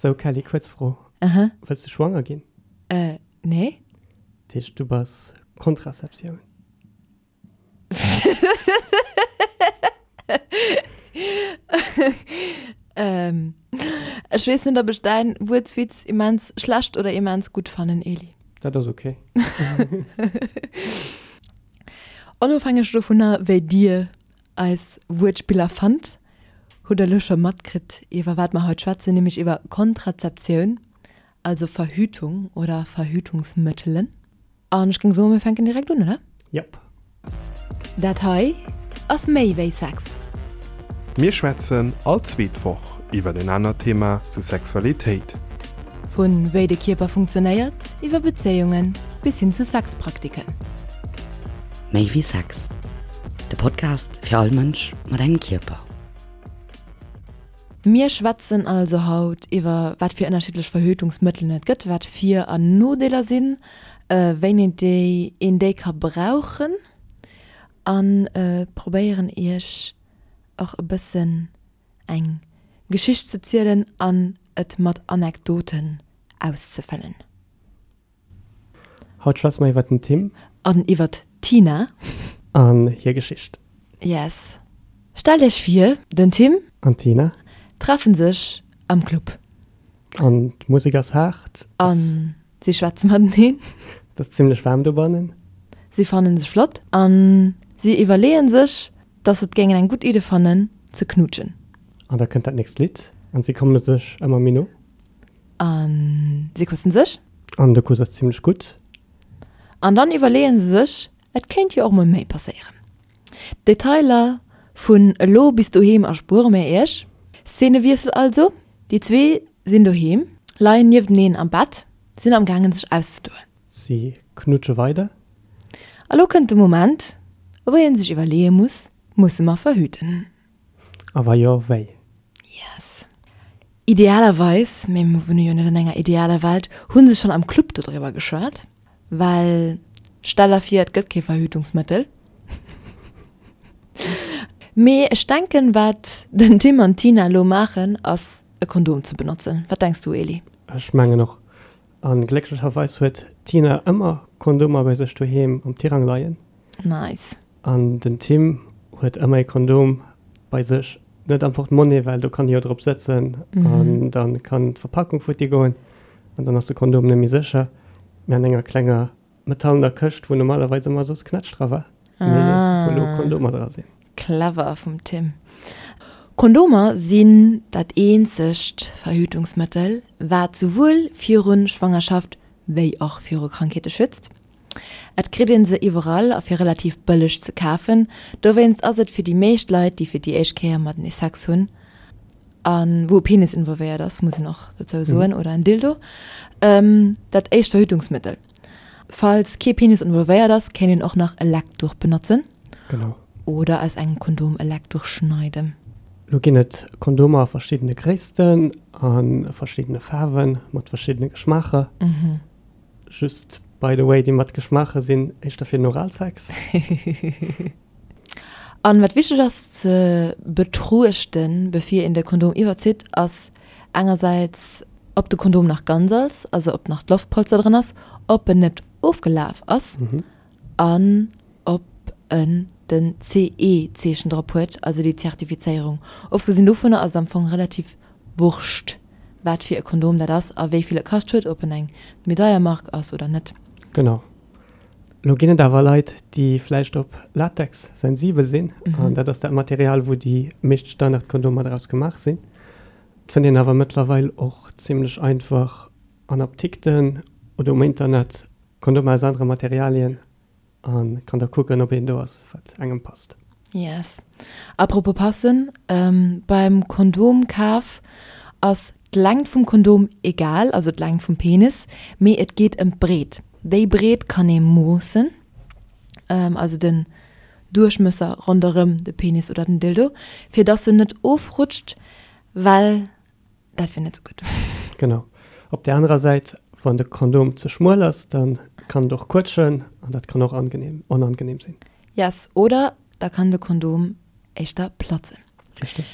Sou Kelly, kuerz Fro, Aha. Wëlls du schwanger ginn? Äh, nee. Dat heescht du bass Kontraseptioun? Ähm, ech weess net, ob ech däin Wuertswitz immens schlecht oder immens gutt fannen, Eli. Dat ass ok. Onofhängeg dovunner, wéi dir eis Wuertspiller fannt, hutt der elo scho matkritt, iwwer wat mer haut schwätzen, nämlech iwwer Kontrazeptioun, also Verhütung oder Verhütungsmëttelen. An ech géing soen, mir fänken direkt un, oder? Jop. Dat hei ass méi wéi Sex. Mir schwätzen all zweet Woch iwwer en anert Thema zu Sexualitéit. Vu wéi de Kierper funktionéiert, iwwer Bezéiungen bis hin zu Sexpraktiken. Méi wéi Sex, de Podcast fir all Mënsch mat engem Kierper. Mir schwätzen also haut iwwer wat fir ënnerschiddlech Verhütungsmëttelen et gëtt, wat Vir an Nodeeler sinn, wéini déi een déi ka brauchen a probéieren iech och e bëssen eng Geschicht ze zielen an et mat Anekdoten auszefëllen. Haut schwätze mer iwwert den Tim. An iwwert d'Tina. An hir Geschicht. Yes. Stellt iech vir, den Tim. An d'Tina. Treffen sech am Club. An d'Musek ass haart. A si schwätze mateneen. Et ass zimlech waarm dobannen. Si fannen sech flott a si iwwerleeën sech, dass se et géingen eng gutt Idde fannen, ze knuutschen. An da kënnt dat nächst Lidd an si komme sech ëmmer méi no. A si kussen sech. An de Kuss ass zimlech gutt. An dann iwwerleeën se sech, et kéint jo och mol méi passéieren. D'Detailer vun elo bis doheem erspuere mir iech. Szenewiessel also, déi zwee sinn doheem, leien niefteneen am Bett, sinn am gaangen sech auszedoen. Si knutsche weider. A lo kënnt de Moment, wou een sech iwwerleeë muss, Musse mer verhüten? A wa jo, wéi? Yes. Idealerweis, mee mir wunne jo net an enger idealer Welt, hu se schonn am Club dodriwwer geschwat. Well stell der vir, et gëtt kee Verhütungsmëttel. Mee ech denken, wat den Tim an d'Tina elo maachen, ass e Kondom ze benotzen. Wat denks du, Eli? Ech mengen och. A glécklecherweis huet d'Tina ëmmer Kondomer bei sech doheem am Tirang leien. Nice. An den Tim huet ëmmer e Kondom bei sech, net am Portemonnaie, well do kann e jo drop sëtzen an da kann d'Verpackung futti goen an dann ass de Kondom net méi sécher, mä an enger klenger metallener Këscht, wou normalerweis ëmmer soss Knätsch dra war, mee wou elo Kondomer dra sinn. Clever vum Tim. Kondomer sinn dat eenzegt Verhütungsmëttel, wat souwuel viru Schwangerschaft wéi och viru Krankheete schützt. Et kritt een se iwwerall a fir relativ bëlleg ze kafen. Dowéinst ass et fir déi meescht Leit, déi fir déi éischt Kéier matenee Sex hunn, a wou e Penis involvéiert ass, muss een och dozou soen, oder en Dildo, dat éischt Verhütungsmëttel. Falls kee Penis involvéiert ass, kéint een och nach e Leckduch benotzen. Genau. Oder aus engem Kondom e Leckduch schneiden. Lo ginn et Kondomer a verschiddene Gréissten, a verschiddene Faarwen, mat verschiddene Geschmaacher. Just by the way, déi mat Geschmaache sinn éischter fir den Oralsex. An wat wichteg ass ze betruechten bevir een de Kondom iwwerzitt, ass engersäits ob de Kondom nach ganz ass, also ob nach d'Loftpolster dran ass, ob en net ofgelaf ass an ob en den CE-Zeechen drop huet, also déi Zertifizéierung. Ofgesinn dovunner ass et am Fong relativ Wurscht wat fir e Kondom dat ass a wéi vill e kascht huet, ob en eng méi deier Mark ass oder net. Genau. Lo ginn et awer Leit, déi vläicht op Latex sensibel sinn, an dat ass dat Material, wou déi meescht Standardkondomer draus gemaach sinn. Et fënnt een awer mëttlerweil och zimmlech einfach an Apdikten oder um Internet Kondomer aus anere Materialien. A kann da kucken, ob een do ass, wat engem passt. Yes. Apropos passen, beim Kondomkaf ass d'Längt vum Kondom egal, also d'Längt vum Penis, mee et geet ëm d'Breet. Déi Breet kann ee moossen, also den Duerchmësser ronderëm de Penis oder den Dildo, fir dass en net ofrutscht, well Dat wier net sou gutt. Genau. Op där anerer Säit, wann de Kondom ze schmuel ass, da kann et och quëtschen an dat kann och angenehm, onangenehm sinn. Yes, oder da kann de Kondom éischter platzen. Richteg.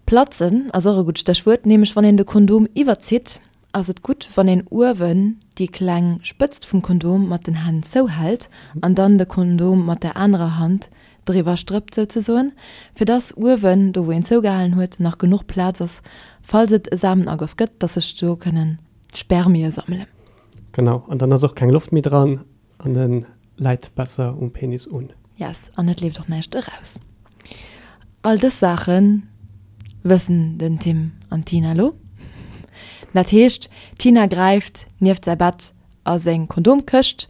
Platzen ass och e gutt Stéchwuert, nämlech wann een de Kondom iwwerzitt, ass et gutt wann een uewen déi kleng Spëtzt vum Kondom mat den Hänn zouhält an dann de Kondom mat der anerer Hand driwwer strëppt souzesoen, fir dass uewen, do wou een zougehalen huet, nach genuch Plaz ass, falls et e Samenagoss gëtt, dass sech do kënnen d'Spermie sammelen. Genau, an dann ass och keng Loft méi dran an e läit besser um Penis un. Yes, an et leeft och näischt eraus. All dës Saache wëssen den Tim an d'Tina elo. Dat heescht, d'Tina gräift nieft säi Bett a seng Kondomkëscht,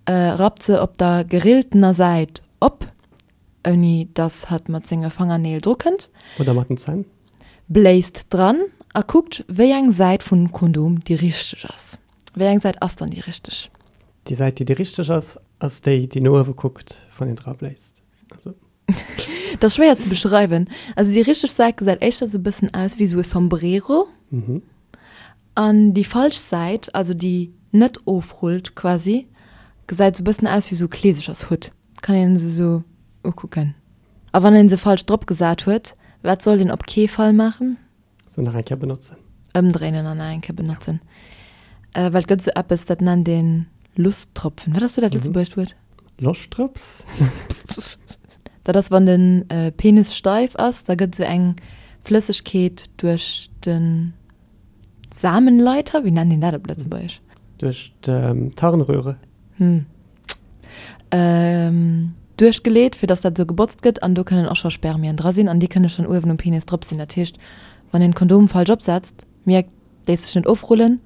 rappt se op der gerilltener Säit op, ouni dass hatt mat senge Fangerneel dru kënnt. Oder mat den Zänn. Bléist dran a kuckt, wéi eng Säit vum Kondom déi richteg ass. Wéi eng Säit ass dann déi richteg? Déi Säit, déi déi richteg ass, ass déi, déi no uewe kuckt, wann een dra bléist. Also. Dat ass schwéier ze beschreiwen. Also déi richteg Säit gesäit éischter sou e bëssen aus wéi sou e Sombrero. An déi falsch Säit, also déi net ofrullt quasi, gesäit sou e bëssen aus wéi sou e Kleesechershutt. Kann een se sou ukucken. A wann een se falsch drop gesat huet, wat sollt een op kee Fall maachen? Se nach eng Kéier benotzen. Ëmdréinen an nach eng Kéier benotzen. Well et gëtt esou eppes, dat nennt een Lusttropfen. Wat ass do dat lëtzebuergescht Wuert? Loschtdrëps? Dat ass, wann de Penis steif ass, da gëtt esou eng Flëssegkeet duerch de Samenleiter, wéi nennt een dat op Lëtzebuergesch? Duerch d'Harnröhre. Hm. Duerchgeleet, fir dass dat esou gebotzt gëtt an do kënnen och scho Spermien dra sinn an déi kënne schonn uewen um Penis drop sinn. Dat heescht, wann een d'Kondom falsch opsetzt, mierkt, léisst sech net ofrullen,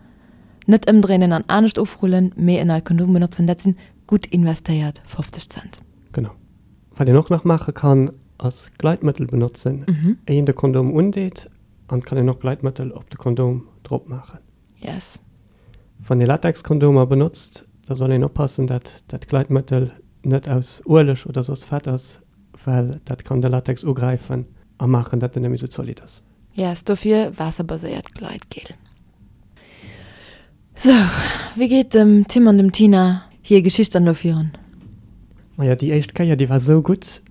net ëmdréinen an anescht ofrullen, mee en neit Kondom benotzen. Dat sinn gutt investéiert 50 Cent. Genau. Wat een och nach maache kann, ass Gleitmëttel benotzen, éi een de Kondom undeet an et kann een och Gleitmëttel op de Kondom drop maachen. Yes. Wann ee Latexkondomer benotzt, da soll een oppassen, dat dat Gleitmëttel net aus Ueleg oder soss Fett ass, well dat kann de Latex ugräifen a maachen, dat en net méi sou zolidd ass. Yes, dofir waasserbaséiert Gleitgel. Sou, wéi geet dem Tim an dem Tina hir Geschicht dann elo virun? Maja, déi éischt Kéier, déi war sou gutt,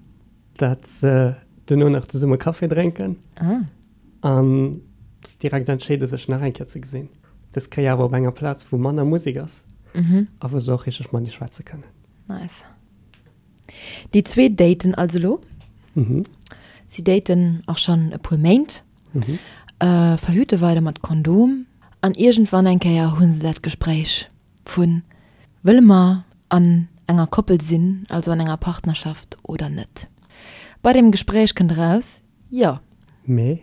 dat se duerno nach zesumme Café drénken. Ah. An direkt entscheede sech nach eng Kéier ze gesinn. Dës Kéier awer op enger Plaz, wou manner Musek ass a wou se och richteg matenee schwätze kënnen. Nice. Déi zwee daten also elo. Si daten och schonn e puer Méint, verhüte weider mat Kondom an iergendwann eng Kéier hu se dat Gespréich vu wëlle mer an enger Koppel sinn, also an enger Partnerschaft oder net. Bei deem Gespréich kënnt eraus, Jo. Mee?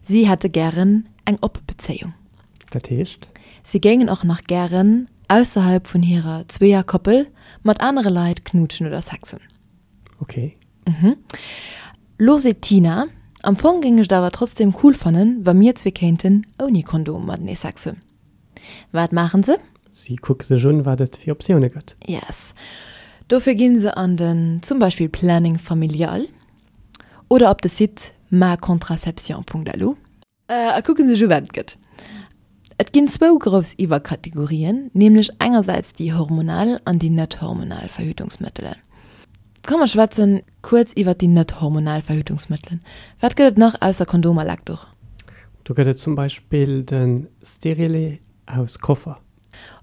Si hätte gären eng oppe Bezéiung. Dat heescht? Si géingen och nach gären ausserhalb vun hirer Zweeër-Koppel mat anere Leit knuutschen oder Sex hunn. Ok. Mhm. Lo seet d'Tina, Am Fong géing ech et awer trotzdem cool fannen, wa mir zwee kéinten ouni Kondom matenee Sex hunn. Wat maachen se? Si kucke sech un, wat et fir Optioune gëtt. Yes. Dofir ginn se an den zum Beispill Planning Familial. Oder op de Site macontraception.lu. A kucke sech u wat et gëtt. Et ginn zwou grouss Iwwerkategorien, nämlech engersäits déi hormonal an déi net hormonal Verhütungsmëttelen. Komm mer schwätzen kuerz iwwert déi net hormonal Verhütungsmëttelen. Wat gëtt et nach ausser Kondom a Leckduch? Do gëtt et zum Beispill de Stérilet aus Koffer.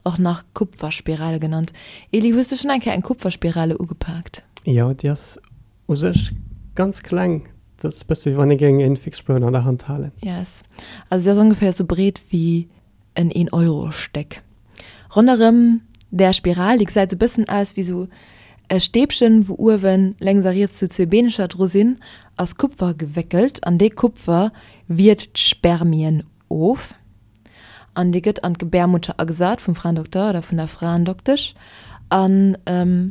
Och nach Kupferspirale genannt. Eli, hues du schonn eng Kéier eng Kupferspirale ugepaakt? Jo, déi ass U sech ganz kleng, dat ass bësse wéi wann ee géing en Fixspuan an der Hand halen. Yes, also se ass ongeféier sou breet wéi en een Euro Stéck. Ronderëm där Spiral, déi gesäit sou bëssen aus wéi sou e Stäbchen, wou uewen lénks a riets sou zwee Beenecher dru sinn, ass Kupfer gewéckelt an dee Kupfer wiert d'Spermien of an dee gëtt an d'Gebärmutter agesat vum Fraendokter oder vun der Fraendoktesch an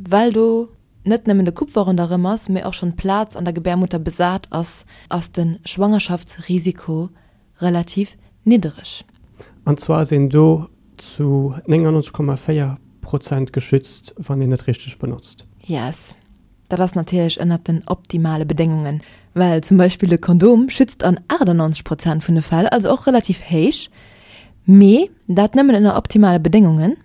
well do net nëmmen de Kupfer ronderëm ass, mee och schonn d'Plaz an der Gebärmutter besat ass, ass de Schwangerschaftsrisiko relativ niddereg. An zwar ass een do zu 99,4 Prozent geschützt, wann een et richteg benotzt. Yes, dat ass natierlech ënnert den optimale Bedéngungen, well zum Beispill de Kondom schützt an 98 Prozent vun de Fäll, also och relativ héich, mee dat nëmmen ënner optimale Bedéngungen.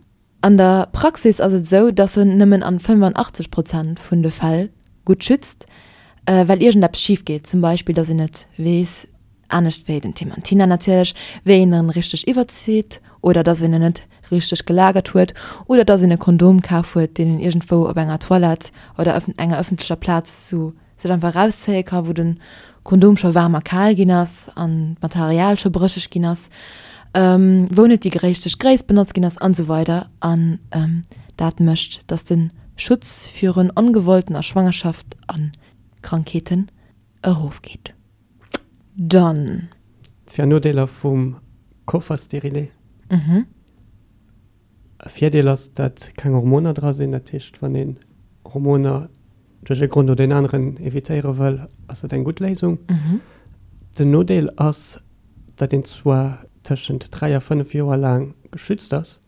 An der Praxis ass et esou, dass en nëmmen an 85 Prozent vun de Fäll gutt schützt, well iergendeppes schif geet, zum Beispill dass een net weess. Anescht wéi den Tim an d'Tina natierlech, wéi een en richteg iwwerzitt oder dass een en net richteg gelagert huet oder dass een e Kondom kaf huet, deen een iergendwou op enger Toilette oder enger ëffentlecher Plaz sou sech einfach erauszéie ka wou de Kondom scho waarm a kal ginn ass an d'Material scho brécheg ginn ass, wou net déi richteg Gréisst benotzt ginn ass an esou weider. An dat mécht, dass de Schutz virun ongewolltener Schwangerschaft a Krankheeten erofgeet. Dann. Vir an Nodeeler vum Kofferstérilet. E Virdeel ass, dat keng Hormoner dra sinn. Dat heescht, wann een Hormoner duerch e Grond oder een aneren evitéiere wëll, ass dat eng gutt Léisung. Den Nodeel ass, dat een zwar tëschent 3 a 5 Joer laang geschützt ass,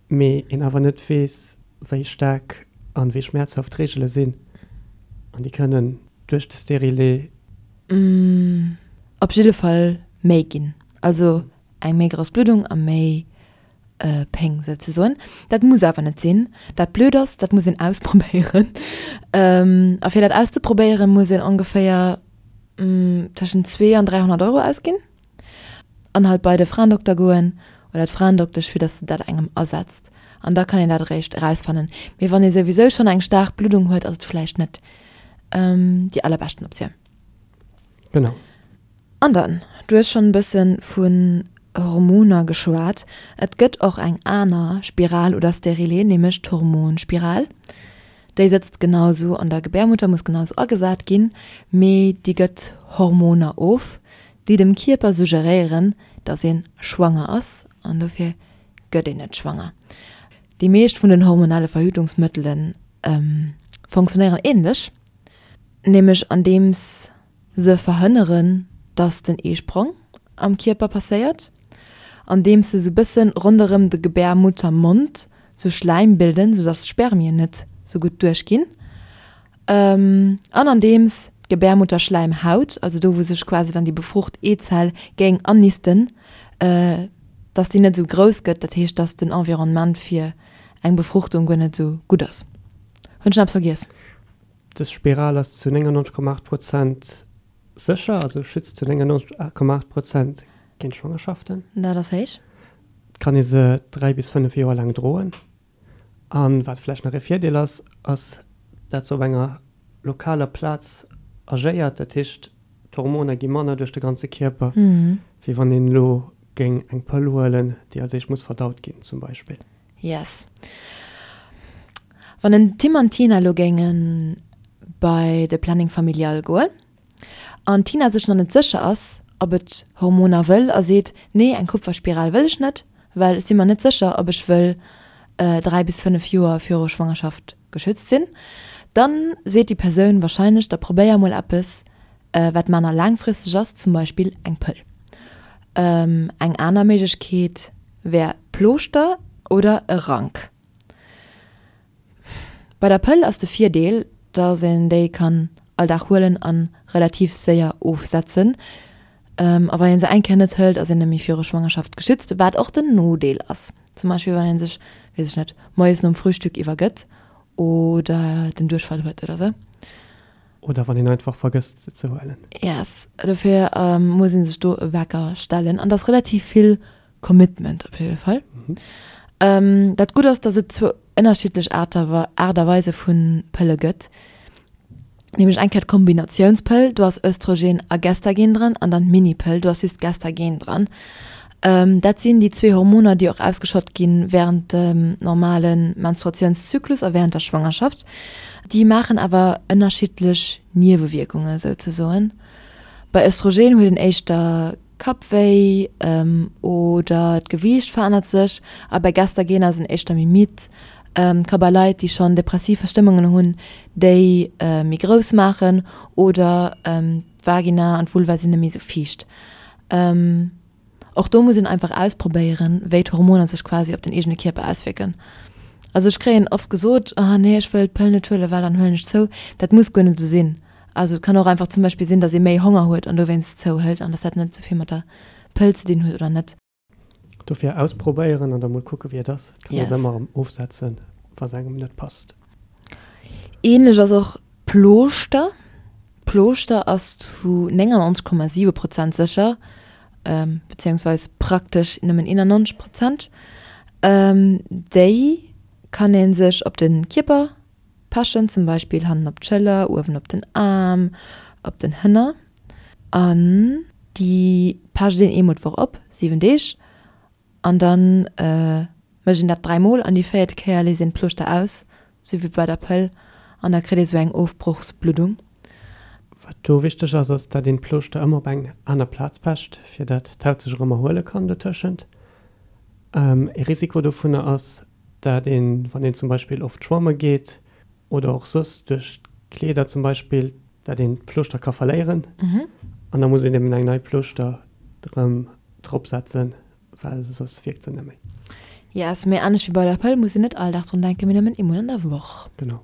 mee een awer net weess, wéi staark an wéi schmäerzhaft d'Reegele sinn an déi kënnen duerch de Stérilet. Op jidde Fall méi ginn. Also eng méi grouss Bluddung a méi Péng souzesoen. Dat muss awer net sinn. Dat blöd ass, dat muss een ausprobéieren. A fir dat auszeprobéieren, muss een ongeféier tëschent 2 an 300 Euro ausginn an halt bei de Fraendokter goen oder d'Fraendoktesch, fir dass se dat engem asetzt. An da kann een dat eréischt erausfannen. Mee wann ee souwisou schonn eng staark Bluddung huet, ass et vläicht net déi allerbeschten Optioun. Genau. An dann, du hues schonn e bësse vun Hormoner geschwat, et gëtt och eng aner Spiral oder Stérilet, nämlech d'Hormonspiral. Déi sëtzt genau sou an der Gebärmutter, muss genau sou agesat ginn, mee déi gëtt Hormoner of, déi dem Kierper suggeréieren, dass ee schwanger ass an dofir gëtt een net schwanger. Déi meescht vun den hormonelle Verhütungsmëttele fonctionnéieren änlech, nämlech andeems Se verhënneren, dass den Eesprong am Kierper passéiert, andeems se sou bëssen ronderëm de Gebärmuttermond sou Schläim bilden, sou dass d'Spermien net sou gutt duerchginn, an andeems d'Gebärmutterschläimhaut, also do wou sech quasi dann déi befrucht Eezell géing annisten, dass déi net sou grouss gëtt, dat heescht, dass den Environnement fir eng Befruchtung guer net sou gutt ass. Hunn ech nach eppes vergiess? Dës Spiral ass zu 99,8 Prozent sécher, also schützt zu 99,8 Prozent géint Schwangerschaften. Dat ass héich. Et kann ee se 3 bis 5 Joer laang droen. A wat vläicht nach e Virdeel ass, ass dat se op enger lokaler Plaz agéiert. Dat heescht, d'Hormoner gi manner duerch de ganze Kierper, wéi wann een elo géing eng Pëll huelen, déi als éischt muss verdaut ginn zum Beispill. Yes. Wann den Tim an d'Tina elo géinge bei de Planning Familial goen an d'Tina sech nach net sécher ass, ob et Hormoner wëll a seet, nee, eng Kupferspiral wëll ech net, well ech si mer net sécher, ob ech wëll 3 bis 5 Joer viru Schwangerschaft geschützt sinn, dann seet déi Persoun wahrscheinlech, da probéier mol eppes, wat manner laangfristeg ass, zum Beispill eng Pëll. Eng aner Méiglechkeet wär Plooschter oder e Rank. Bei der Pëll ass de Virdeel, dass een déi kann all Dag huelen a relativ séier ofsetzen. A wann een se eng Kéier net hëlt, ass een net méi viru Schwangerschaft geschützt, wat och den Nodeel ass. Zum Beispill wann ee sech, weess ech net, moies nom Frühstück iwwergëtt oder den Duerchfall huet oder sou. Oder wann een einfach vergësst se ze huelen. Yes, dofir muss een sech do e Wecker stellen an dat ass relativ vill Commitment op jidde Fall. Dat Gutt ass, datt et zwou ënnerschiddlech Aart a Weise vu Pëlle gëtt, nämlech eng Kéier d'Kombinatiounspëll, do ass Östrogen a Gestagen dran, an dann d'Minipëll, do ass just Gestagen dran. Dat sinn déi zwee Hormoner, déi och ausgeschott gi wärend dem normale Menstruatiounszyklus a wärend der Schwangerschaft. Déi maachen awer ënnerschiddlech Niewewierkunge souzesoen. Bei Östrogen huet een éischter Kappwéi oder d'Gewiicht verännert sech a bei Gestagen ass een éischter méi midd. Ka bei Leit, déi schonn depressiv Verstëmmungen hunn, déi méi grouss maachen oder d'Vagina an d'Vulva sinn net méi esou fiicht. Och do muss een einfach ausprobéieren, wéi d'Hormoner sech quasi op den eegene Kierper auswierken. Also ech kréien oft gesot, ah nee, ech wëll d'Pëll net huelen, well dann huelen ech zou. Dat muss guer net esou sinn. Also et kann och einfach zum Beispill sinn, datt ee méi Honger huet an dowéinst zouhëlt an datt dat net esou vill mat der Pëll ze dinn huet oder net. Dofir ausprobéieren an da mol kucke wéi et ass. Et kann ee se ëmmer erëm ofsetzen, wa se engem net passt. Ähnlech ass och Plooschter. D'Plooschter ass zu 99,7 Prozent sécher, bezéiungsweis praktesch nëmmen 91 Prozent. Déi kann ee sech op de Kierper pechen, zum Beispill hannen op d'Schëller, uewen op den Aarm, op den Hënner. An déi pecht een eemol d'Woch op, 7 Deeg. An dann mécht een dat 3 mol an déi véiert Kéier léisst een d'Plooschter aus, sou wéi bei der Pëll, an da kritt ee sou eng Ofbrochsbluddung. Wat do wichteg ass, ass dat een d'Plooschter ëmmer op eng aner Plaz pecht, fir dat d'Haut sech erëm erhuele kann dotëschent. Ee Risiko dovunner ass, dat een, wann een zum Beispill oft schwamme geet oder och soss duerch d'Kleeder zum Beispill, dat een d'Plooschter ka verléieren an da muss een eben eng nei Plooschter erëm drop setzen, well soss wierkt se net méi. Yes, mee anescht wéi bei der Pëll muss een net all Dag drun denken, mee nëmmen eemol an der Woch. Genau.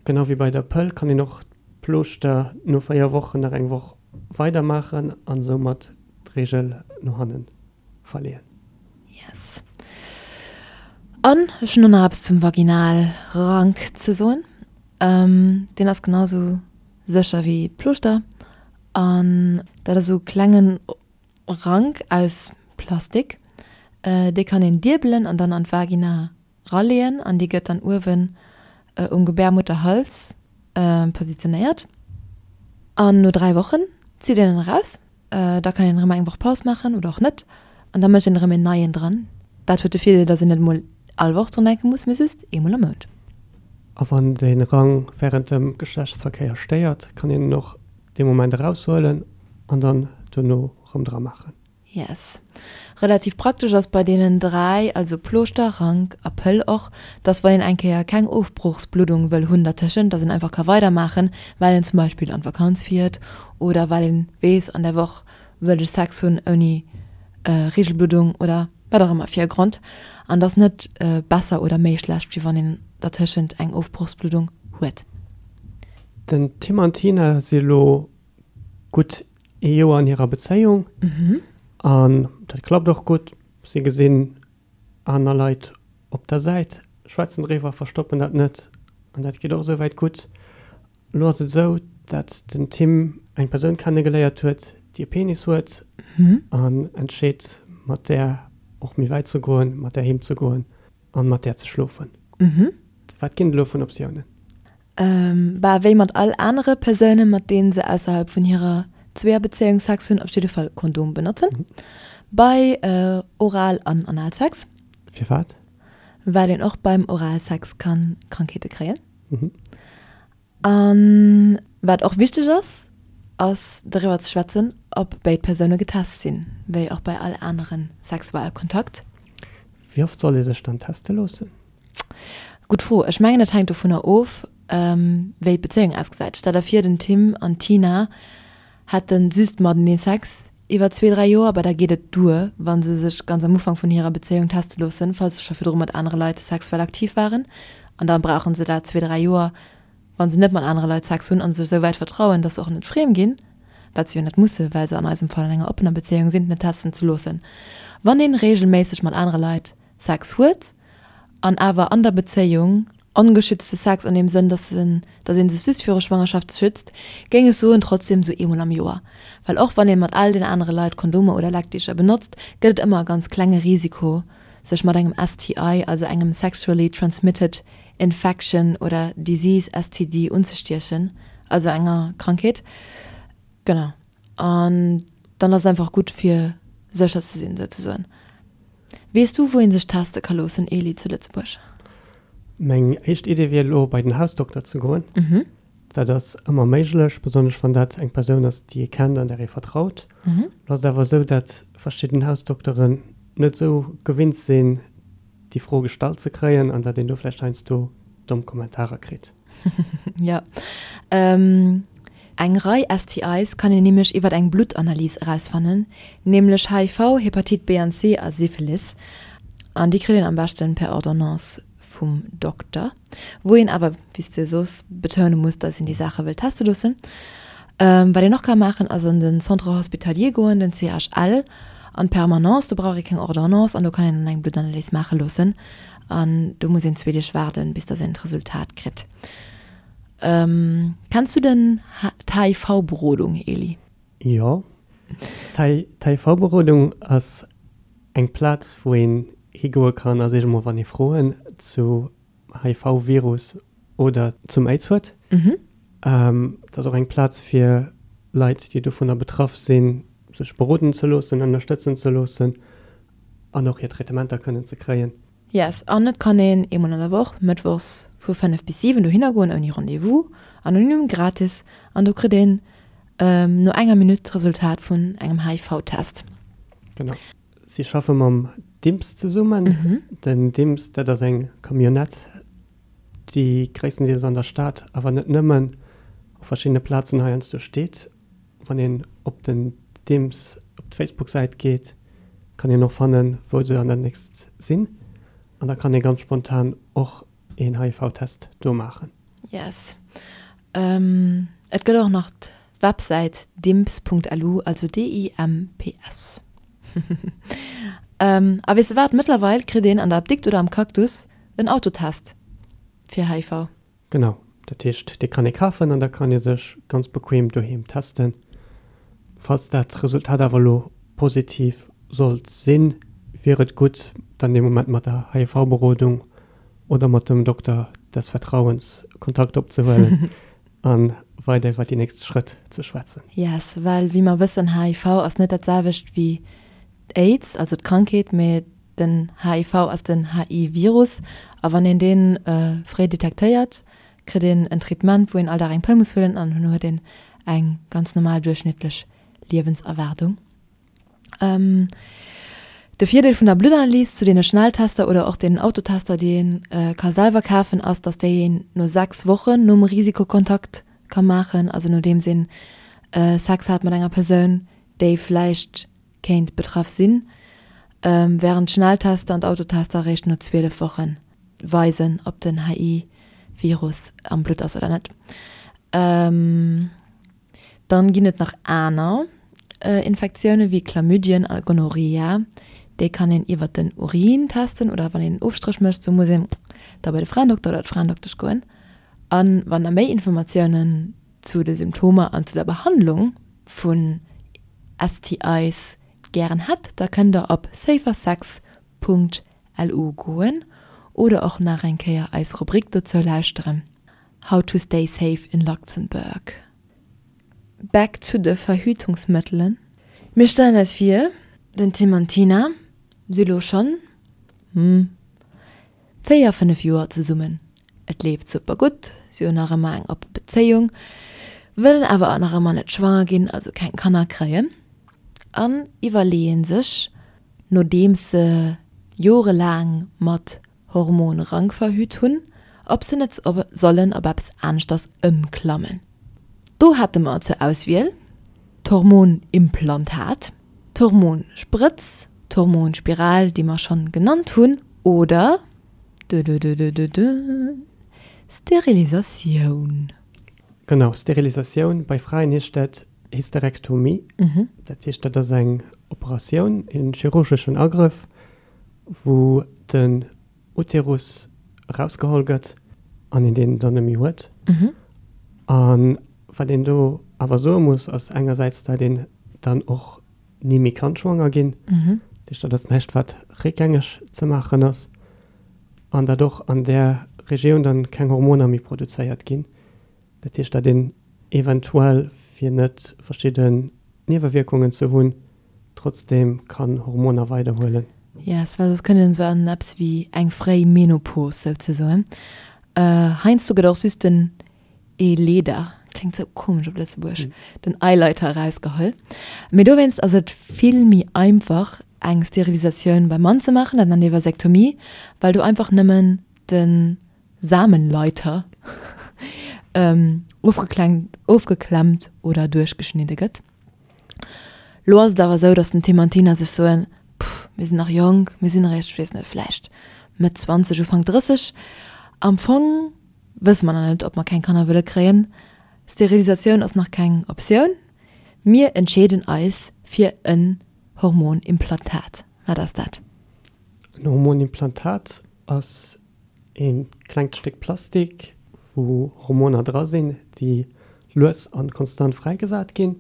Genau wéi bei der Pëll kann een och d'Plooschter no 4 Wochen nach eng Woch weider maachen an soumat d'Reegel no hannen verleeën. Yes. An ech hunn och nach eppes zum Vaginalrank ze soen. Deen ass genau sou sécher wéi d'Plooschter an dat ass sou e klengen Rank aus Plastik. Dee kann een diebelen an dann an d'Vagina raleeën an déi gëtt dann uewen um Gebärmutterhals positionéiert. An no 3 Wochen zitt een en eraus. Da kann een erëm eng Woch Paus maachen oder och net an da mécht een erëm een neien dran. Dat huet de Virdeel, datt een net emol all Woch drun denke muss, mee just eemol am Mount. A wann de Rang wärend dem Geschlechtsverkéier stéiert, kann een en och dee Moment eraushuelen an dann dono erëm dra maachen. Yes. Relativ praktesch ass bei deenen 3, also Plooschter, Rank a Pëll och, dass wann een eng Kéier keng Ofbrochsbluddung wëll hunn dertëschent, dass een einfach ka weidermaachen, well een zum Beispill an d'Vakanz fiert oder well een weess an der Woch wëll ech Sex hunn ouni Reegelbluddung oder wat och ëmmer fir e Grond. An dass net besser oder méi schlecht wéi wann een dertëschent eng Ofbrochsbluddung huet. Den Tim an d'Tina si lo gutt ee Joer an hirer Bezéiung an dat klappt och gutt. Si gesinn aner Leit op der Säit, schwätzen driwwer, verstoppen dat net an dat geet och esouwäit gutt. Elo ass et esou, dat den Tim eng Persoun kennegeléiert huet, déi e Penis huet an entscheet mat där och méi wäit ze goen, mat där heem ze goen an mat där ze schlofen. Wat ginn et elo vun Optiounen? Bah, wéi mat all anere Persounen, mat deenen se ausserhalb vun hirer Zweeërbezéiung Sex hunn, op jidde Fall Kondom benotzen. Bei Oral an Analsex. Firwat? Well een och beim Oralsex kann Krankheete kréien. An wat och wichteg ass, ass doriwwer ze schwätzen, ob béid Persoune getest sinn, wéi och bei all anere Sexualkontakt. Wéi oft soll ee sech dann teste loossen? Gutt Fro. Ech mengen dat hänkt dovunner of, wéi d'Bezéiung ausgesäit. Stell der vir den Tim an d'Tina hätte just matenee Sex iwwer zwee, dräi Joer, bah da geet et duer, wa se sech ganz am Ufank vun hirer Bezéiung teste loossen, falls se scho virdru mat anere Leit sexuell aktiv waren. An da brauche se dat zwee, dräi Joer, wa se net mat anere Leit Sex hunn a sech esou wäit vertrauen, datt se och net friem ginn, wat se jo net musse, well se an eisem Fall an enger oppener Bezéiung sinn, net testen ze loossen. Wann ee reegelméisseg mat anere Leit Sex huet an awer an der Bezéiung, ongeschützte Sex an deem Sënn, dass en, dass ee sech just viru Schwangerschaft schützt, géing ech soen, trotzdem sou eemol am Joer. Well och wann ee mat all den anere Leit Kondomer oder Leckdicher benotzt, gëtt et ëmmer e ganz klenge Risiko, sech mat engem STI, also engem Sexually Transmitted Infection oder Disease, STD, unzestiechen, also enger Krankheet. Genau. An dann ass et einfach gutt, fir sécher ze sinn, souzesoen. Weess du, wou ee sech teste ka loossen, Eli, zu Lëtzebuerg? Meng éischt Idee wier elo, bei den Hausdokter ze goen. Dat ass ëmmer méiglech, besonnesch wann dat eng Persoun ass, déi ee kennt an där ee vertraut. Elo ass et awer esou, datt verschidden Hausdokteren net esou gewinnt sinn, déi Fro gestallt ze kréien an datt een do vläicht heiansdo domm Kommentarer kritt. Jo. Eng Rei STIs kann een nämlech iwwer eng Bluttanalys erausfannen, nämlech HIV, Hepatit B an C a Syphilis. An déi kritt een am beschten per Ordonnance vum Dokter, wou een awer, wéi s de soos, betoune muss, dass een déi Saache wëll teste loossen. Wat een och ka maachen, ass an den Centre hospitalier goen, den CHL, an d'Permanence. Do brauch ee keng Ordonnance an do kann een dann eng Bluttanalys maache loossen. An do muss een zwee Deeg waarden, bis dass een d'Resultat kritt. Kenns du den d'HIV-Berodung, Eli? Jo. D'HIV-Berodung ass eng Plaz, wou een higoe kann a sech emol, wann ee Froen zu HIV-Virus oder zum Aids huet. Et ass och eng Plaz fir Leit, déi dovunner betraff sinn, sech beroden ze loossen, ënnerstëtzen ze loossen an och hir Traitementer kënnen ze kréien. Yes, an et kann een eemol an der Woch, mëttwochs vu 5 bis 7 dohinner goen ouni Rendez-vous, anonym, gratis, an do kritt een no enger Minutt d'Resultat vun engem HIV-Test. Genau. Si schaffe mam DIMPS zesummen. Den DIMPS, dat ass eng Camionnette, déi gréisstendeels an der Stad, awer net nëmmen, op verschiddene Plazen heiansdo steet. Wann een op den DIMPS op d'Facebook-Säit geet, kann een och fannen, wou se an der nächst sinn. An da kann ee ganz spontan och een HIV-Test do maachen. Yes. Et gëtt och nach d'Websäit dimps.lu, also D-I-M-P-S. A weess de wat, mëttlerweil kritt een an der Apdikt oder am Cactus en Autotest fir HIV. Genau, dat heescht dee kann ee kafen an da kann ee sech ganz bequem doheem testen. Falls dat Resultat awer elo positiv sollt sinn, wier et gutt dann dee Moment mat der HIV-Berodung oder mat dem Dokter des Vertrauens Kontakt opzehuelen a weider iwwer déi nächst Schrëtt ze schwätzen. Yes, well wéi mer wëssen, HIV ass net dat selwecht wéi d'Aids, also d'Krankheet, mee Den HIV ass den HI-Virus a wann een dee fréi detektéiert, kritt een en Traitement, wou een all Dag eng Pëll muss huelen an herno huet een eng ganz normal duerchschnittlech Liewenserwaardung. De Virdeel vun der Bluttanalys zu deene Schnelltester oder och deenen Autotester, déi ee ka selwer kafen, ass, datt déi een no 6 Wochen nom Risikokontakt ka maachen, also nodeems een Sex hat mat enger Persoun, déi vläicht kéint betraff sinn, wärend d'Schnelltester an d'Autotester eréischt no 12 Woche weisen, ob den HI-Virus am Blutt ass oder net. Dann ginn et nach aner Infektioune wéi Chlamydien a Gonorrhea. Déi kann een iwwer den Urin testen oder wann een en Ofstréch mécht. Sou muss een da bei de Fraendokter oder d'Fraendoktesch goen. A wann der méi Informatiounen zu de Symptomer an zu der Behandlung vun STIs gären hätt, da kënnt der op safersex.lu goen oder och nach eng Kéier eis Rubrik dozou lauschteren, How to stay safe in Luxembourg. Back zu de Verhütungsmëttelen. Mir stellen eis vir, den Tim an d'Tina si lo schonn, hm, 4, 5 Joer zesummen. Et leeft super gutt, si hunn nach ëmmer eng oppe Bezéiung, wëllen awer nach ëmmer net schwanger ginn, also keng Kanner kréien an iwwerleeë sech, nodeems se jorelaang mat Hormonrank verhüt hunn, ob se net sollen op eppes aneschters ëmklammen. Do hätte mer zur Auswiel d'Hormonimplantat, d'Hormonsprëtz, d'Hormonspiral, déi mer schonn genannt hunn, oder, dödödödödö, Sterilisatioun. Genau, Sterilisatioun, bei Fraen heescht dat Hysterektomie. Dat heescht, dat ass eng Operatioun, e chirurgeschen Agrëff, wou den Uterus erausgeholl gëtt an een deen dann net méi huet. A wat een do awer soe muss, ass engersäits, datt een dann och ni méi kann schwanger ginn. Dat heescht, dat ass näischt, wat réckgängeg ze maachen ass. An datt och an där Regioun dann keng Hormoner méi produzéiert ginn. Dat heescht, datt een eventuell, fir net verschidden Niewewierkungen ze hunn, trotzdem kann Hormoner weiderhuelen. Yes, well soss kënnt een esou an eppes wéi eng fréi Menopos souzesoen. Heiansdo gëtt och just den Eeleeder, kléngt sou komesch op Lëtzebuergesch, den Eileiter erausgeholl. Mee dowéinst ass et vill méi einfach eng Sterilisatioun beim Mann ze maachen, dat nennt ee Vasektomie, well do einfach nëmmen de Samenleiter ofgeklemmt oder duerchgeschnidde gëtt. Lo ass et awer esou, datt den Tim an d'Tina sech soen, Pff, mir sinn nach jonk, mir sinn eréischt, ech weess net, vläicht Mëtt 20, Ufank 30. Am Fong wësse mer nach net, ob mer keng Kanner wëlle kréien. Sterilisatioun ass nach keng Optioun. Mir entscheeden eis fir en Hormonimplantat. Wat ass dat? En Hormonimplantat ass e klengt Stéck Plastik, wou Hormoner dra sinn, déi lues a konstant fräigesat ginn.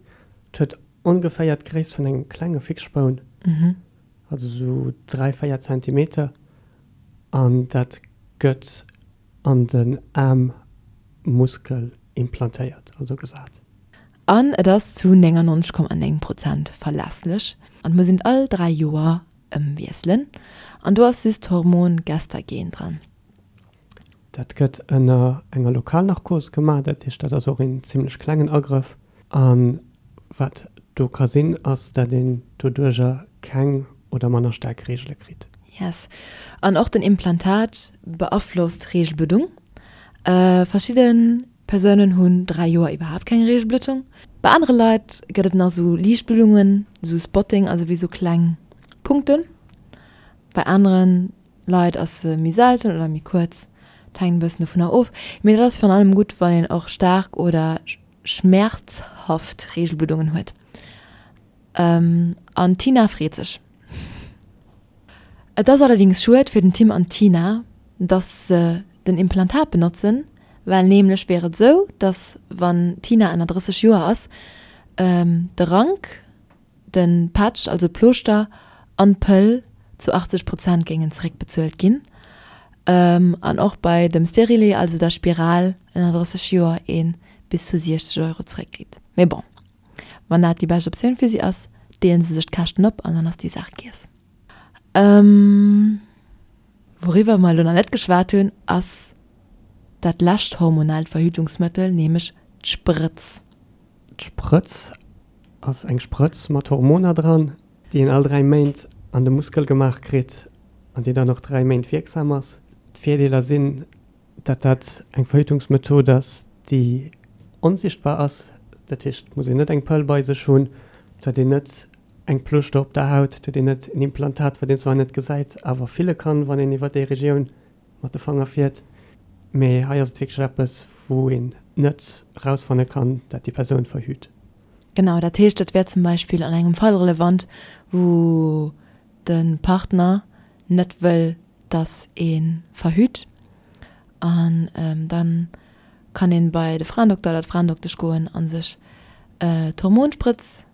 Et huet ongeféier d'Gréisst vun engem klenge Fixspoun, also sou 3, 4 Zentimeter, an dat gëtt an den Aarmmuskel implantéiert, also gesat. An et ass zu 99,9 Prozent verlässlech an et muss een et all 3 Joer ëmwiesselen an do ass just d'Hormon Gestagen dran. Dat gëtt ënner enger Lokalnarkos gemaach, dat heescht dat ass och een zimlech klengen Agrëff. A wat do ka sinn, ass dat een doduercher keng oder manner staark Reegele kritt. Yes. An och den Implantat beaflosst d'Reegelbluddung. Verschidde Persounen hunn 3 Joer iwwerhaapt keng Reegelbluddung. Bei anere Leit gëtt et nach sou liicht Bluddungen, sou Spotting, also wéi sou kleng Punkten. Bei anere Leit ass se méi selten oder méi kuerz, et hänkt e bëssen dovunner of. Mee dat ass virun allem gutt, wann een och staark oder schmäerzhaft Reegelbluddungen huet. An d'Tina freet sech. Et ass allerdings schued fir den Tim an d'Tina, dass se den Implantat benotzen, well nämlech wier et esou, dass wann d'Tina ënner 30 Joer ass, de Rank, de Patch, also d'Plooschter, an d'Pëll zu 80 Prozent géingen zeréckbezuelt ginn an och bei dem Stérilet, also der Spiral, ënner 30 Joer ee bis zu 60 Euro zeréckkritt. Mee bon, wann dat déi bescht Optioun fir si ass, deelen se sech d'Käschten op an dann ass déi Saach giess. Wouriwwer mer elo nach net geschwat hunn, ass dat lescht hormonellt Verhütungsmëttel, nämlech d'Sprëtz. D'Sprëtz ass eng Sprëtz mat Hormoner dran, déi een all 3 Méint an de Muskel gemaach kritt an déi dann och 3 Méint wierksam ass. D'Virdeeler sinn, dat dat eng Verhütungsmethod ass, déi onsichtbar ass, dat heescht, et muss een net eng Pëll bei sech hunn, et huet een net eng Plooschter op der Haut, et huet een net en Implantat, wat een zwar net gesäit, awer fille kann, wann een iwwer déi Regioun mat de Fanger fiert. Mee hei ass et wierklech eppes, wou een net erausfanne kann, dat déi Persoun verhüt. Genau, dat heescht, dat wär zum Beispill an engem Fall relevant, wou de Partner net wëll, dass ee verhüt. An da kann ee bei de Fraendokter oder d'Fraendoktesch goen a sech d'Hormonsprëtz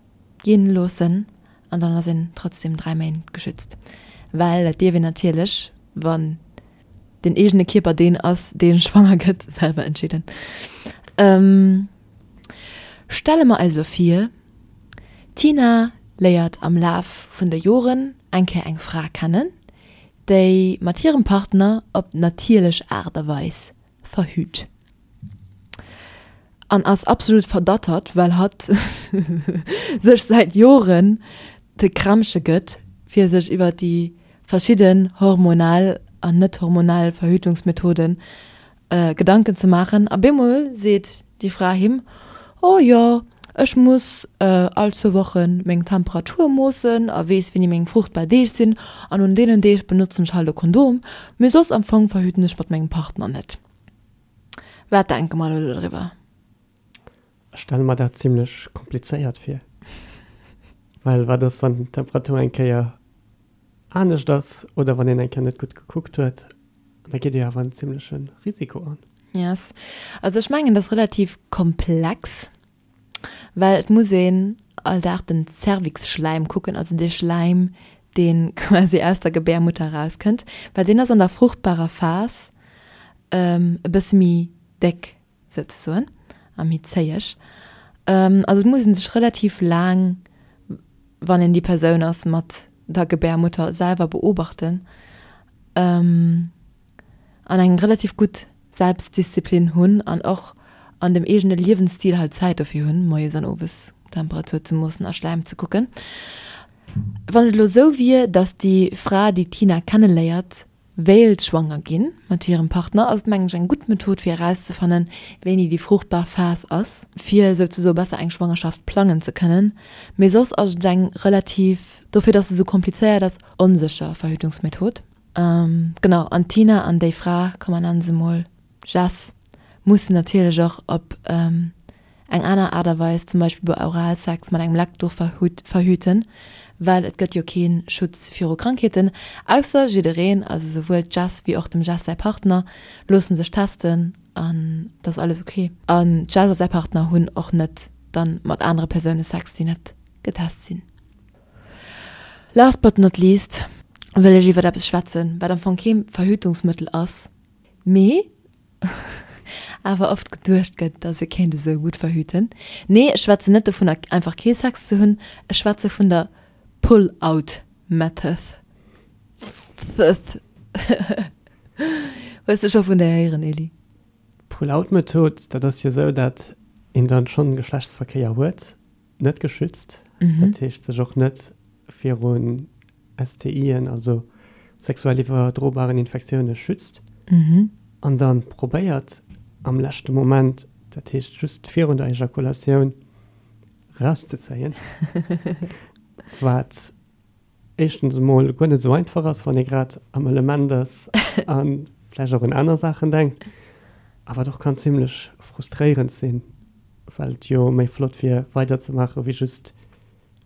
ginn loossen an dann ass een trotzdem 3 Méint geschützt. Well dat dierf een natierlech, wann den eegene Kierper deen ass, dee schwanger gëtt, selwer entscheeden. Stelle mer eis elo vir, d'Tina léiert am Laf vun de Joren eng Kéier eng Fra kennen, déi mat hirem Partner op natierlech Aart a Weis verhüt. An ass absolut verdattert, well hatt sech säit Joren de Krämpche gëtt, fir sech iwwer déi verschidden hormonell an net hormonell Verhütungsmethoden Gedanken ze maachen. A bemol seet déi Fra him, Oh jo, ech muss all zwou Woche meng Temperatur moossen a weess, wéini meng fruchtbar Deeg sinn, an un deenen Deeg benotzen ech halt e Kondom, mee soss am Fong verhüten ech mat mengem Partner net. Wat denke mer elo doriwwer? Ech stelle mer dat zimlech komplizéiert vir. Well wat ass, wann d'Temperatur eng Kéier anescht ass oder wann een eng Kéier net gutt gekuckt huet? Da geet ee jo awer en zimleche Risiko an. Yes. Also ech mengen, dat ass relativ komplex, well et muss een all Dag den Cervixschläim kucken, also dee Schläim, dee quasi aus der Gebärmutter erauskënnt, well deen ass an der fruchtbarer Phas e bësse méi déck souzesoen a méi zéieg. Also et muss ee sech relativ laang, wann een déi Persoun ass mat der Gebärmutter, selwer beobachten an eng relativ gutt Selbstdisziplin hunn an och an dem eegene Liewensstil halt Zäit dofir hunn, moies an owes Temperatur ze moossen a Schläim ze kucken. Wann et elo sou wier, datt déi Fra, déi d'Tina kenneléiert, wéilt schwanger ginn mat hirem Partner, ass et mengen ech eng gutt Method fir erauszefannen, wéini déi fruchtbar Phas ass, fir souzesoe besser eng Schwangerschaft plangen ze kënnen. Mee soss ass et eng relativ, dofir dass se sou komplizéiert ass, onsécher Verhütungsmethod. Genau, an d'Tina an déi Fra, komm mer nennen se mol Jess, mussen natierlech och op eng aner Aart a Weis, zum Beispill bei Oralsex mat engem Leckduch verhüten, well et gëtt jo kee Schutz viru Krankheeten, ausser jiddereen, also souwuel d'Jess wéi och dem Jess säi Partner, loosse sech testen. An et ass alles ok. An d'Jess a säi Partner hunn och net dann mat anere Persoune Sex, déi net getest sinn. Last but not least wëll ech iwwert eppes schwätzen, wat am Fong kee Verhütungsmëttel ass, mee awer oft geduecht gëtt, dass e kéint esou gutt verhüten. Nee, ech schwätzen net dovunner, einfach kee Sex ze hunn, ech schwätze vun der Pull-out Method. Hues de scho vun där héieren, Elie? D'Pull-out-Method, dat ass jo esou, dat een dann schonn Geschlechtsverkéier huet, net geschützt, dat heescht sech och net virun STIen, also sexuell iwwerdrobaren Infektioune schützt an dann probéiert am leschte Moment, dat heescht just virun der Ejakulatioun, rauszezéien, wat éischtens emol guer net esou einfach ass, wann ee grad am Element ass a vläicht och un aner Saachen denkt, a wat och kann zimlech frustréierend sinn, well et jo méi flott wier weiderzemaachen, wéi just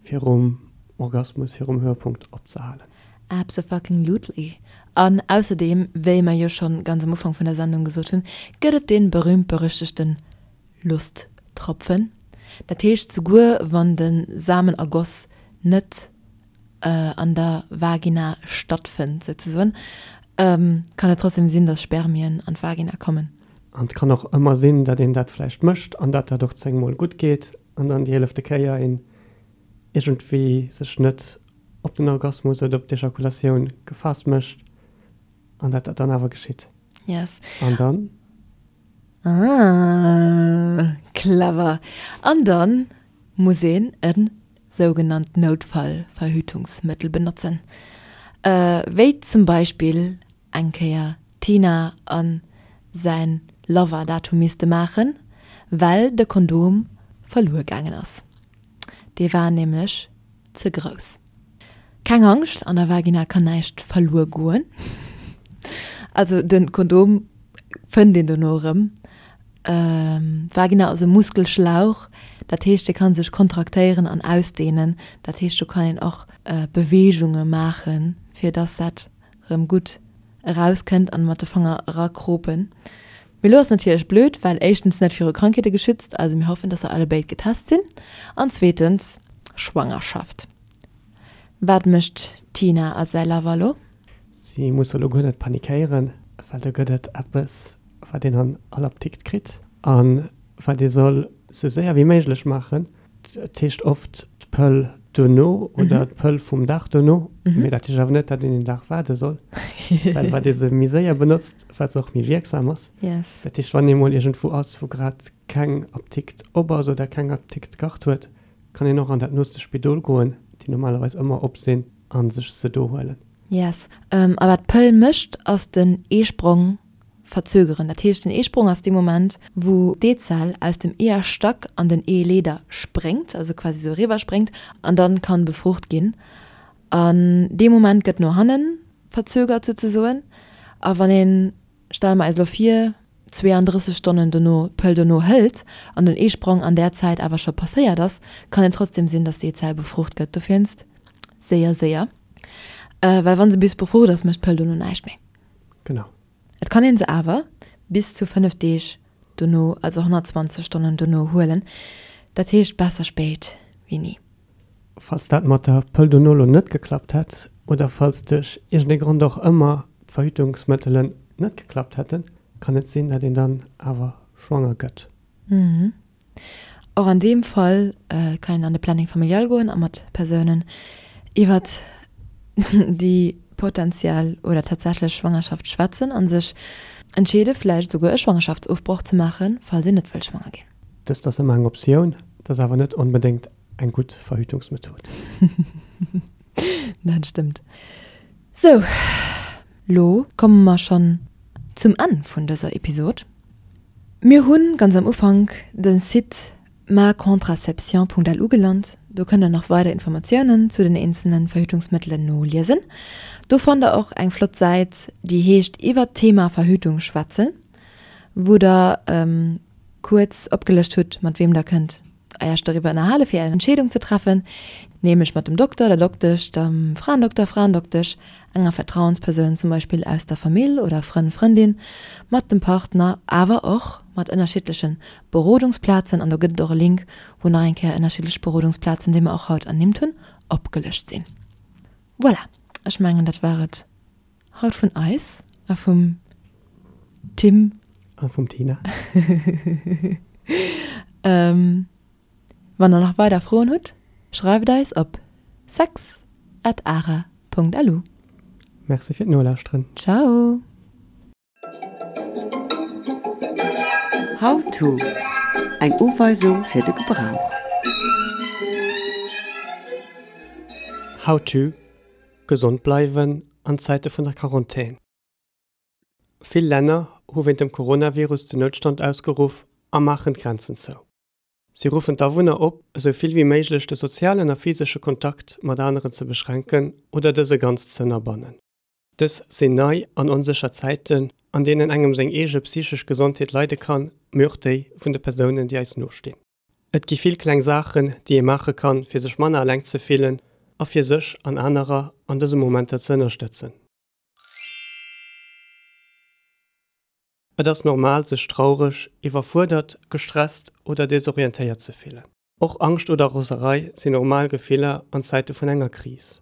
virum Orgasmus, virum Höhepunkt opzehalen. Absofuckinglutely. An ausserdeem, wéi mer jo schonn ganz am Ufank vun der Sendung gesot hunn, gëtt et dee berühmt-berüchtegten Lusttropfen. Dat heescht, souguer wann de Samenergoss net an der Vagina stattfënnt souzesoen, kann et trotzdem sinn, dass Spermien an d'Vagina kommen. An et kann och ëmmer sinn, datt een dat vläicht mécht an datt dat och zéngmol gutt geet an dann déi eelefte Kéier een iergendwéi sech net op den Orgasmus oder op d'Ejakulatioun gefaasst mécht an datt dat dann awer geschitt. Yes. An dann? Ah, clever. An dann muss een e sougenannt Noutfallverhütungsmëttel benotzen, wéi zum Beispill eng Kéier d'Tina a säin Lover dat hu misste maachen, well de Kondom verluer gaangen ass. Dee war nämlech ze grouss. Keng Angscht, an der Vagina kann näischt verluer goen. Also de Kondom fënnt een dono erëm. D'Vagina ass e Muskelschlauch, dat heescht dee kann sech kontraktéieren an ausdehnen. Dat heescht do kann een och Beweegunge maachen, fir dass dat erëm gutt erauskënnt an mat de Fanger erakropen. Mee lo ass natierlech blöd, well éischtens net viru Krankheete geschützt, also mir hoffen, dass se allebéid getest sinn, an zweetens Schwangerschaft. Wat mécht d'Tina a säi Lover lo? Si musse lo guer net panikéieren, well do gëtt et eppes, wat een an all Apdikt kritt a wat ee soll sou séier wéi méiglech maachen. Et heescht oft d'Pëll dono oder d'Pëll vum Dag dono, mee dat heescht awer net, datt een een Dag waarde soll, well wat ee se méi séier benotzt, wat se och méi wierksam ass. Dat heescht, wann ee mol iergendwou ass, wou grad keng Apdikt op ass oder keng Apdikt d'Kart huet, kann een och an dat nooste Spidol goen, déi normalerweis ëmmer op sinn, a sech se do huelen. Yes. A wat d'Pëll mécht, ass den Eesprong verzögeren. Dat heescht, den Eesprong ass dee Moment, wou d'Eezell aus dem Eeërstack an den Eeleeder spréngt, also quasi esou eriwwer spréngt an dann kann befrucht ginn. An dee Moment gëtt no hannen verzögert souzesoen. A wann een, stelle mer eis elo vir, 32 Stonnen dono d'Pëll dono hëlt an den Eesprong an där Zäit awer scho passéiert ass, kann et trotzdem sinn, dass d'Eezell befrucht gëtt. Dowéinst séier, séier, well wa se bis befrucht ass, mécht d'Pëll dono näischt méi. Genau. Et kann een se awer bis zu 5 Deeg dono, also 120 Stonnen dono huelen. Dat heescht besser spéit wéi ni. Falls dat mat der Pëll dono lo net geklappt hätt oder falls duerch iergendee Grond och ëmmer d'Verhütungsmëttelen net geklappt hätten, kann et sinn, dat een dann awer schwanger gëtt. Och an deem Fall kann een an de Planning familial goen a mat Persounen iwwert déi potentiell oder tatsächlech Schwangerschaft schwätzen a sech entscheede vläicht esouguer e Schwangerschaftsofbroch ze maachen, falls een net wëll schwanger ginn. Dëst ass ëmmer eng Optioun, et ass awer net onbedéngt eng gutt Verhütungsmethod. Dat stëmmt. Sou, lo komme mer schonn zum Enn vun dëser Episod. Mir hu ganz am Ufank de Site macontraception.lu gelant. Do kënnt der nach weider Informatiounen zu den eenzelne Verhütungsmëttelen noliesen. Do fannt der och eng flott Säit, déi heescht Iwwert d'Thema Verhütung schwätzen, wou der kuerz opgelëscht hutt, mat weem der kënnt Iech doriwwer ënnerhale fir Är Entscheedung ze treffen. Nämlech mat dem Dokter, der Doktesch, dem Fraendokter, Fraendoktesch, enger Vertrauenspersoun zum Beispill aus der Famill oder Frënn, Frëndin, mat dem Partner, awer och mat ënnerschiddleche Berodungsplazen. An do gëtt et och e Link, wou nach eng Kéier ënnerschiddlech Berodungsplazen, déi mer och haut ernimmt hunn, opgelëscht sinn. Voilà, ech mengen dat war et haut vun eis a vum Tim. A vum Tina. Wann der nach weider Froen hutt, schreift eis op sex at ara Punkt lu. Merci fir d'Nolauschteren. Ciao! How to, Eng Uweisung fir de Gebrauch. How to, Gesond bleiwen an Zäite vun der Quarantän. Vill Länner hu wéint dem Coronavirus den Noutstand ausgeruff a maachen d'Grenzen zou. Si ruffen d'Awunner op, esou vill wéi méiglech de sozialen a physesche Kontakt mat aneren ze beschränken oder dëse ganz z'ënnerbannen. Dës sinn nei an onsécher Zäiten, an deenen engem seng eege psychesch Gesondheet leide kann, mee och déi vun de Persounen, déi eis nostinn. Et gi vill kleng Saachen, déi ee maache kann, fir sech manner eleng ze fillen a fir sech an anerer an dëse Momenter ze ënnerstëtzen. Et ass normal, sech traureg, iwwerfuerdert, gestresst oder desorientéiert ze fillen. Och Angscht oder Roserei sinn normal Gefiller an Zäite vun enger Kris.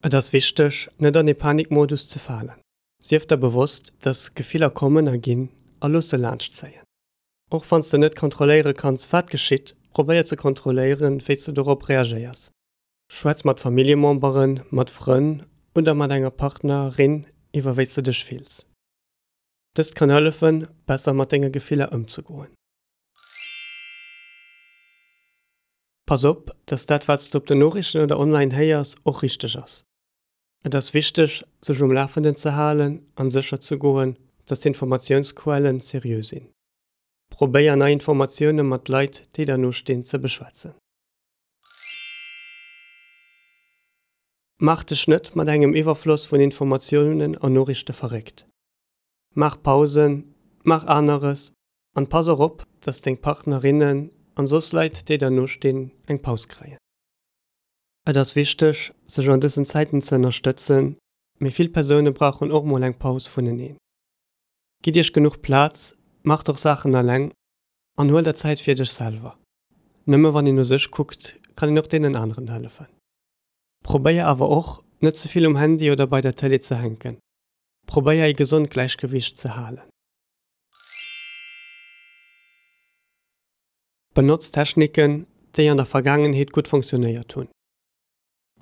Et ass wichteg, net an ee Panikmodus ze falen. Sief der bewosst, dass Gefiller kommen a ginn a looss se laanschtzéien. Och wann s de net kontrolléiere kanns, wat geschitt, probéier ze kontrolléieren, wéi s de dorop reagéiers. Schwätz mat Familljememberen, mat Frënn oder mat enger Partner, rin iwwer wéi s de dech fills. Dëst kann hëllefen, besser mat denge Gefiller ëmzegoen. Pass op, dass dat wat s de op den Noriichten oder online héiers och richteg ass. Et ass wichteg, sech um Lafenden ze halen an sécher ze goen, dass d'Informatiounsquellen seriö sinn. Probéier nei Informatioune mat Leit, déi der no stinn, ze beschwätzen. Maach dech net mat engem Iwwerfloss vun Informatiounen an Noriichte verréckt. Maach Pausen, maach aneres an pass och op, dass deng Partnerinnen an soss Leit, déi der no stinn, eng Paus kréien. Et ass wichteg, sech an dësen Zäiten ze ënnerstëtzen, mee vill Persoune brauchen och mol eng Paus vuneneen. Gitt iech genuch Plaz, maacht och Saachen eleng an huel der Zäit fir dech selwer. Nëmme wann een u sech kuckt, kann een och deenen aneren hëllefen. Probéier awer och, net ze vill um Handy oder bei der Tëlee ze hänken. Probéier ee gesond Gläichgewiicht ze halen. Benotz Techniken, déi an der Vergaangenheet gutt funktionéiert hunn.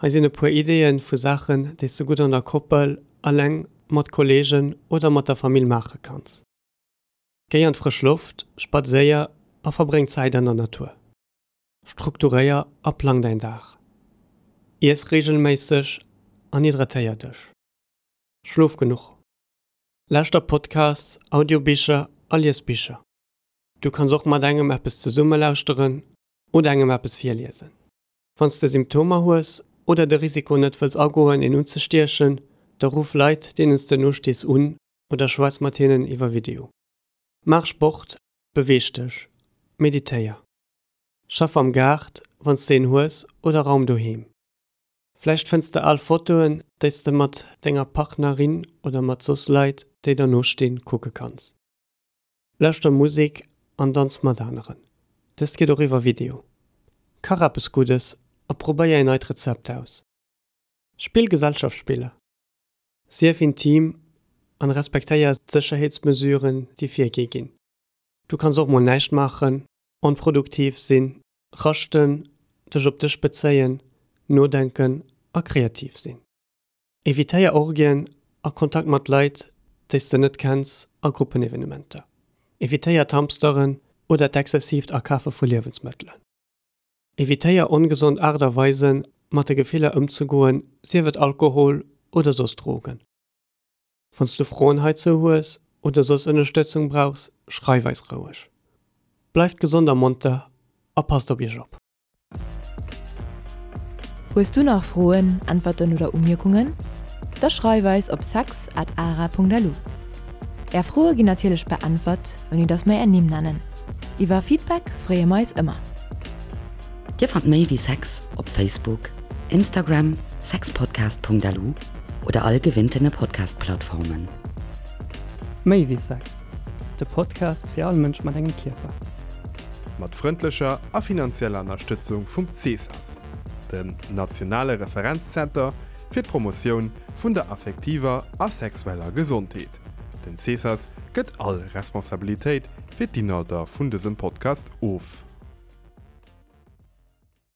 Hei sinn e puer Ideeë vu Saachen, déi s du gutt an der Koppel, eleng, mat Kolleegen oder mat der Famill maache kanns. Géi an d'frësch Loft, spadséier a verbréng Zäit an der Natur. Strukturéier a plang däin Dag. Iess reegelméisseg an hydratéier dech. Schlof genuch. Lauschter Podcasts, Audiobicher a lies Bicher. Du kanns och mat engem eppes zesumme lauschteren oder engem eppes virliesen. Wann s de Symptomer hues oder de Risiko net wëlls agoen een unzestiechen, da ruff Leit deenen s de nostees un oder schwätz mat hinnen iwwer Video. Maach Sport, beweeg dech, meditéier. Schaff am Gaart, wann s de een hues, oder raum doheem. Vläicht fënns de al Fotoen, déi s de mat denger Partnerin oder mat soss Leit, déi der no stinn, kucke kanns. Lauschter Musek an danz mat aneren. Dëst geet och iwwer Video. Kach eppes Guddes a probéier een neit Rezept aus. Spill Gesellschaftsspiller. Sief intim an respektéier d'Sécherheetsmesuren, déi virgi ginn. Du kanns och mol näischt maachen, onproduktiv sinn, raschten, dech op dech bezéien, nodenken a kreativ sinn. Evitéier Orgien a Kontakt mat Leit, déi s de net kenns a Gruppenevenementer. Evitéier d'Hamsteren oder d'exzessiivt Akafe vu Liewensmëttelen. Evitéier ongesond Aart a Weisen, mat de Gefiller ëmzegoen, sief et Alkohol oder soss Drogen. Wann s du Froen heizou hues oder soss Ënnerstëtzung brauchs, schreif eis roueg. Bleift gesond a monter a passt op iech op! Hues du nach Froen, Äntwerten oder Umierkungen? Da schreif eis op sex at ara.lu. Är Froe ginn natierlech beäntwert, ouni datt mer är Nimm nennen. Iwwer Feedback freeë mer eis ëmmer. Dir fannt méi wéi Sex op Facebook, Instagram, sexpodcast.lu oder all gewinntene Podcast-Plattformen. Méi wéi Sex, de Podcast fir all Mënsch mat engem Kierper. Mat frëndlecher a finanzieller Ënnerstëtzung vum CSAS, dem nationale Referenzzenter fir d'Promotioun vun der affektiver a sexueller Gesondheet. Den CSAS gëtt all Responsabilitéit fir d'Inhalter vun dësem Podcast of.